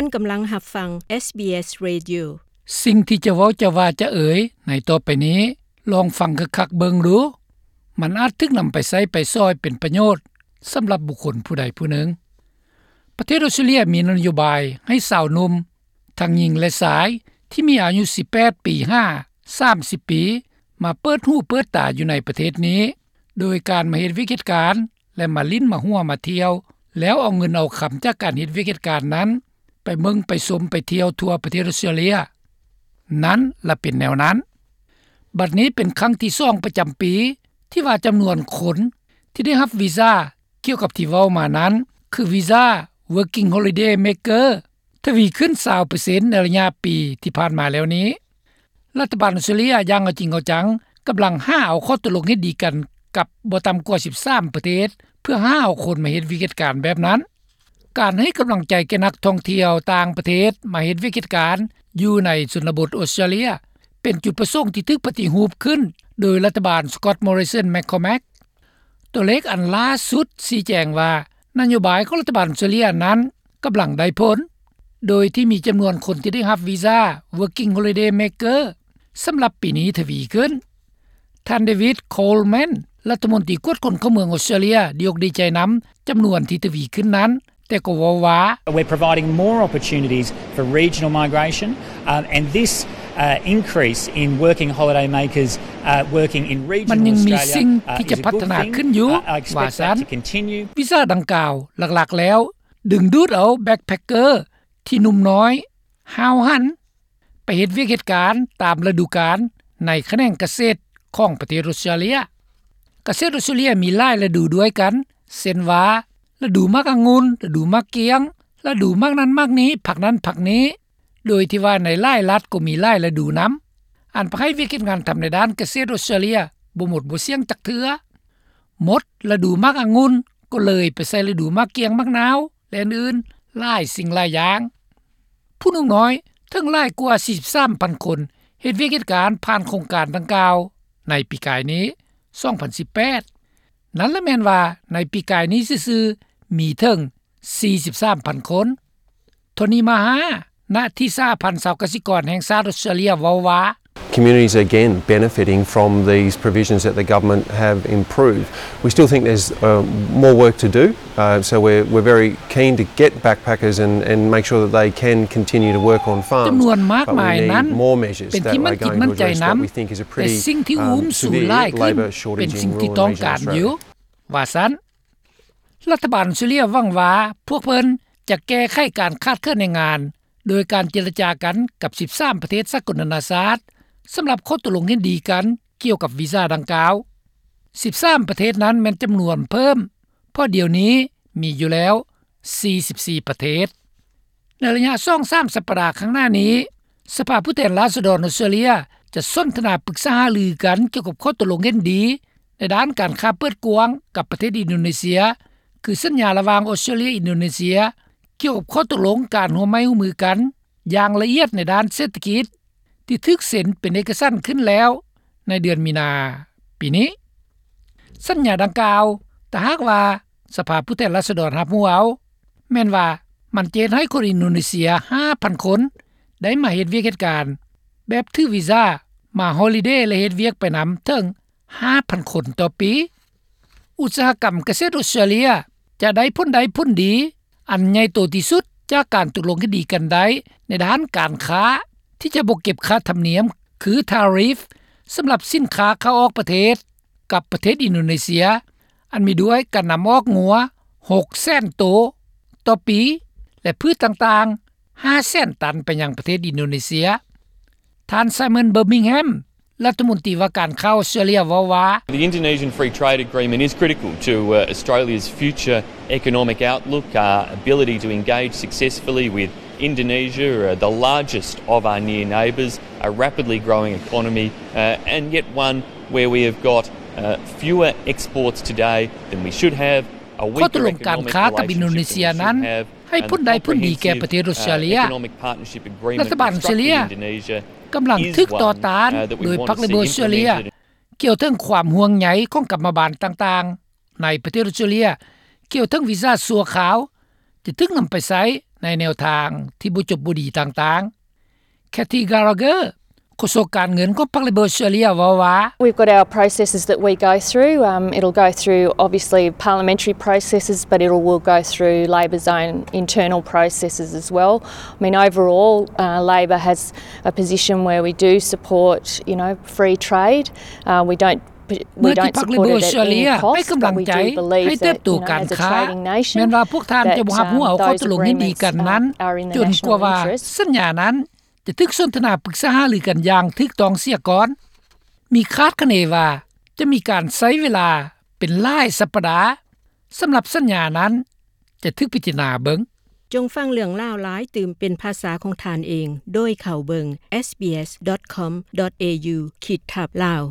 ນກຳລັງຮັບຟັງ ເອສບີເອສ Radio. ສິ່ງທີ່ຈະເວົ້າຈະວ່າຈະເອີຍໃນຕໍ່ໄປນີ້ ລອງຟັງຄັກໆເບິ່ງດູ. ມັນອາດຖືກນຳໄປໃຊ້ໄປສອຍເປັນປະໂຫຍດສຳລັບບຸກຄົນຜູ້ໃດຜູ້ໜຶ່ງ. ປະເທດອອສເຕຣເລຍມີນະໂຍບາຍໃຫ້ຊາວໜຸ່ມ ທັງຍິງ ແລະ ຊາຍ ທີ່ມີອາຍຸສິບແປດປີຫາສາມສິບປີ ມາເປີດຫູເປີດຕາຢູ່ໃນປະເທດນີ້ ໂດຍການມາເຮັດວຽກເຮັດການ ແລະ ມາຫຼິ້ນມາຫົວມາທ່ຽວ ແລ້ວເອົາເງິນເອົາຄຳຈາກການເຮັດວຽກເຮັດການນັ້ນ ໄປເບິ່ງໄປຊົມໄປທ່ຽວທົ່ວປະເທດອອສເຕຣເລຍ. ນັ້ນລະເປັນແນວນັ້ນ. ບັດນີ້ເປັນຄັ້ງທີສອງປະຈຳປີ ທີ່ວ່າຈຳນວນຄົນທີ່ໄດ້ຮັບວີຊາ ກ່ຽວກັບທີ່ເວົ້າມານັ້ນ ຄືວີຊາ Working Holiday Maker ທະວີຂຶ້ນຊາວເປີເຊັນໃນໄລຍະປີທີ່ຜ່ານມາແລ້ວນີ້. ລັດຖະບານອອສເຕຣເລຍຢ່າງເອົາຈິງເອົາຈັງ ກຳລັງຫາເອົາຂໍ້ຕົກລົງເຫັນດີກັນກັບບໍ່ຕ່ຳກວ່າສິບສາມປະເທດ ເພື່ອຫາເອົາຄົນມາເຮັດວຽກເຮັດການແບບນັ້ນ. ການໃຫ້ກຳລັງໃຈແກ່ນັກທ່ອງທ່ຽວຕ່າງປະເທດມາເຮັດວຽກເຮັດການຢູ່ໃນຊົນນະບົດອອສເຕຣເລຍ ເປັນຈຸດປະສົງທີ່ຖືກປະຕິຮູບຂຶ້ນໂດຍລັດຖະບານ Scott Morrison McCormack. ຕົວເລກອັນລ່າສຸດຊີ້ແຈງວ່າ ນະໂຍບາຍຂອງລັດຖະບານອອສເຕຣເລຍນັ້ນກຳລັງໄດ້ຜົນ ໂດຍທີ່ມີຈຳນວນຄົນທີ່ໄດ້ຮັບວີຊາ Working Holiday Maker ສຳລັບປີນີ້ທະວີຂຶ້ນ. ທ່ານ David Coleman ລັດຖະມົນຕີກວດຄົນເຂົ້າເມືອງອອສເຕຣເລຍ ດີອົກດີໃຈນຳຈຳນວນທີ່ທະວີຂຶ້ນນັ້ນ, ແຕ່ກໍເວົ້າວ່າ We're providing more opportunities for regional migration, um, and this, uh, increase in working holiday makers, uh, working in regional Australia, uh, is a good thing. ມັນຍັງມີສິ່ງທີ່ຈະພັດທະນາຂຶ້ນຢູ່ ວ່າຊັ້ນ. ວີຊາດັ່ງກ່າວຫຼັກໆແລ້ວ ດຶງດູດເອົາ backpacker ທີ່ໜຸ່ມນ້ອຍ ຫ້າວຫັນ ໄປເຮັດວຽກເຮັດການຕາມລະດູການໃນຂະແໜງກະເສດຂອງປະເທດອອສເຕຣເລຍ. ກະເສດອອສເຕຣເລຍມີຫຼາຍລະດູດ້ວຍກັນ ເຊັ່ນວ່າ ລະດູໝາກອະງຸ່ນ, ລະດູໝາກກ້ຽງ, ລະດູໝາກນັ້ນໝາກນີ້, ຜັກນັ້ນຜັກນີ້, ໂດຍທີ່ວ່າໃນຫຼາຍລັດກໍມີຫຼາຍລະດູນຳ. ອັນໄປໃຫ້ວຽກເຮັດງານທຳໃນດ້ານກະເສດອອສເຕຣເລຍບໍ່ໝົດບໍ່ສ່ຽງຈັກເທື່ອ. ໝົດລະດູໝາກອະງຸ່ນ ກໍເລີຍໄປໃສ່ລະດູໝາກກ້ຽງ, ໝາກນາວ ແລະ ອື່ນໆ ຫຼາຍສິ່ງຫຼາຍຢ່າງ. ຜູ້ໜຸ່ມນ້ອຍເຖິງຫຼາຍກວ່າສີ່ສິບສາມພັນຄົນ ເຮັດວຽກເຮັດການຜ່ານໂຄງການດັ່ງກ່າວໃນປີກາຍນີ້ ສອງພັນສິບແປດ. ນັ້ນລະແມ່ນວ່າໃນປີກາຍນີ້ຊື່ໆ ມີເຖິງສີ່ສິບສາມພັນຄົນ. ໂທນີ ມາຮາ ນະທີ່ສະຫະພັນຊາວກະສິກອນແຫ່ງຊາດອອສເຕຣເລຍ ເວົ້າວ່າ Communities again benefiting from these provisions that the government have improved. We still think there's, uh, more work to do, uh, so we're, we're very keen to get backpackers and, and make sure that they can continue to work on farms. ຈຳນວນມາກມາຍນັ້ນ But we need more measures that are going to address what we think is a pretty, um, severe labour shortage in rural and regional Australia. ວ່າຊັ້ນ. ລັດຖະບານອອສເຕຣເລຍຫວັງວ່າພວກເພິ່ນຈະແກ້ໄຂການຂາດເຂີນແຮງງານ ໂດຍການເຈລະຈາກັນກັບສິບສາມປະເທດສາກົນນານາຊາດ ສຳລັບຂໍ້ຕົກລົງເຫັນດີກັນກ່ຽວກັບວີຊາດັ່ງກ່າວ. ສິບສາມປະເທດນັ້ນແມ່ນຈຳນວນເພີ່ມ, ເພາະດຽວນີ້ມີຢູ່ແລ້ວສີ່ສິບສີ່ປະເທດ. ໃນໄລຍະສອງສາມສັບປະດາຂ້າງໜ້ານີ້, ສະພາຜູ້ແທນລາຊະດອນອອສເຕຣເລຍຈະສົນທະນາປຶກສາຫາລືກັນກ່ຽວກັບຂໍ້ຕົກລົງເຫັນດີໃນດ້ານການຄ້າເປີດກວ້າງກັບປະເທດອິນໂດເນເຊຍ, ຄືສັນຍາລະຫວ່າງອອສເຕຣເລຍ-ອິນໂດເນເຊຍ ກ່ຽວກັບຂໍ້ຕົກລົງການຮ່ວມໄມ້ຮ່ວມມືກັນຢ່າງລະອຽດໃນດ້ານເສດຖະກິດ ທີ່ຖືກເຊັນເປັນເອກະສັນຂຶ້ນແລ້ວໃນເດືອນມີນາປີນີ້. ສັນຍາດັ່ງກ່າວ, ຖ້າຫາກວ່າສະພາຜູ້ແທນລາຊະດອນຮັບຮູ້ເອົາ, ແມ່ນວ່າມັນຈະເຮັດໃຫ້ຄົນອິນໂດເນເຊຍຫ້າພັນຄົນ ໄດ້ມາເຮັດວຽກເຮັດການແບບຖືວີຊາມາຮອລິເດ ແລະ ເຮັດວຽກໄປນຳເຖິງຫ້າພັນຄົນຕໍ່ປີ. ອຸດສາຫະກຳກະເສດອອສເຕຣເລຍຈະໄດ້ຜົນໄດ້ຜົນດີອັນໃຫຍ່ໂຕທີ່ສຸດຈາກການຕົກລົງເຫັນດີກັນໄດ້ໃນດ້ານການຄ້າ ທີ່ຈະບໍ່ເກັບຄ່າທຳນຽມ ຄື tariff ສຳລັບສິນຄ້າເຂົ້າອອກປະເທດກັບປະເທດອິນໂດເນເຊຍ ອັນມີດ້ວຍການນຳອອກງົວຫົກແສນໂຕຕໍ່ປີ ແລະ ພືດຕ່າງໆຫ້າແສນຕັນໄປຍັງປະເທດອິນໂດເນເຊຍ. ທ່ານ Simon Birmingham ລັດຖະມົນຕີວ່າການຄ້າອອສເຕຣເລຍເວົ້າວ່າ The Indonesian Free Trade Agreement is critical to, uh, Australia's future economic outlook, our ability to engage successfully with Indonesia, uh, the largest of our near neighbours, a rapidly growing economy, uh, and yet one where we have got, uh, fewer exports today than we should have, a weaker economic relationship than we should have, ຂໍ້ຕົກລົງການຄ້າກັບອິນໂດເນເຊຍນັ້ນ ໃຫ້ຜົນໄດ້ຜົນດີແກ່ປະເທດອອສເຕຣເລຍ. ລັດຖະບານອອສເຕຣເລຍກຳລັງຖືກຕໍ່ຕ້ານໂດຍພັກເລເບີອອສເຕຣເລຍ ກ່ຽວເຖິງຄວາມຫ່ວງໃຍຂອງກຳມະບານຕ່າງໆໃນປະເທດອອສເຕຣເລຍ ກ່ຽວເຖິງວີຊາຊົ່ວຄາວ ຈະຖືກນຳໄປໃຊ້ ໃນແນວທາງທີ່ບໍ່ຈົບບໍ່ດີຕ່າງໆ. Kathy Gallagher ໂຄສົກການເງິນຂອງພັກ Labor ເອເຊຍເວົ້າວ່າ We've got our processes that we go through. Um, it'll go through, obviously, parliamentary processes, but it will go through Labor's own internal processes as well. I mean, overall, uh, Labor has a position where we do support, you know, free trade. Uh, we don't ເມື່ອທີ່ພັກ Labor ເອເຊຍໃຫ້ກຳລັງໃຈໃຫ້ເຕີບໂຕການຄ້າ ແມ່ນວ່າພວກທ່ານຈະບໍ່ຮັບຮູ້ເອົາຂໍ້ຕົກລົງທີ່ດີກັນນັ້ນ ຈົນກວ່າວ່າສັນຍານັ້ນຈະຖືກສົນທະນາປຶກສາຫາລືກັນຢ່າງຖືກຕ້ອງເສຍກ່ອນ. ມີຄາດຄະເນວ່າຈະມີການໃຊ້ເວລາເປັນຫຼາຍສັບປະດາ ສຳລັບສັນຍານັ້ນຈະຖືກພິຈາລະນາເບິ່ງ. ຈົ່ງຟັງເລື່ອງລາວຫຼາຍຕື່ມເປັນພາສາຂອງທ່ານເອງ ໂດຍເຂົ້າເບິ່ງ sbs.com.au/lao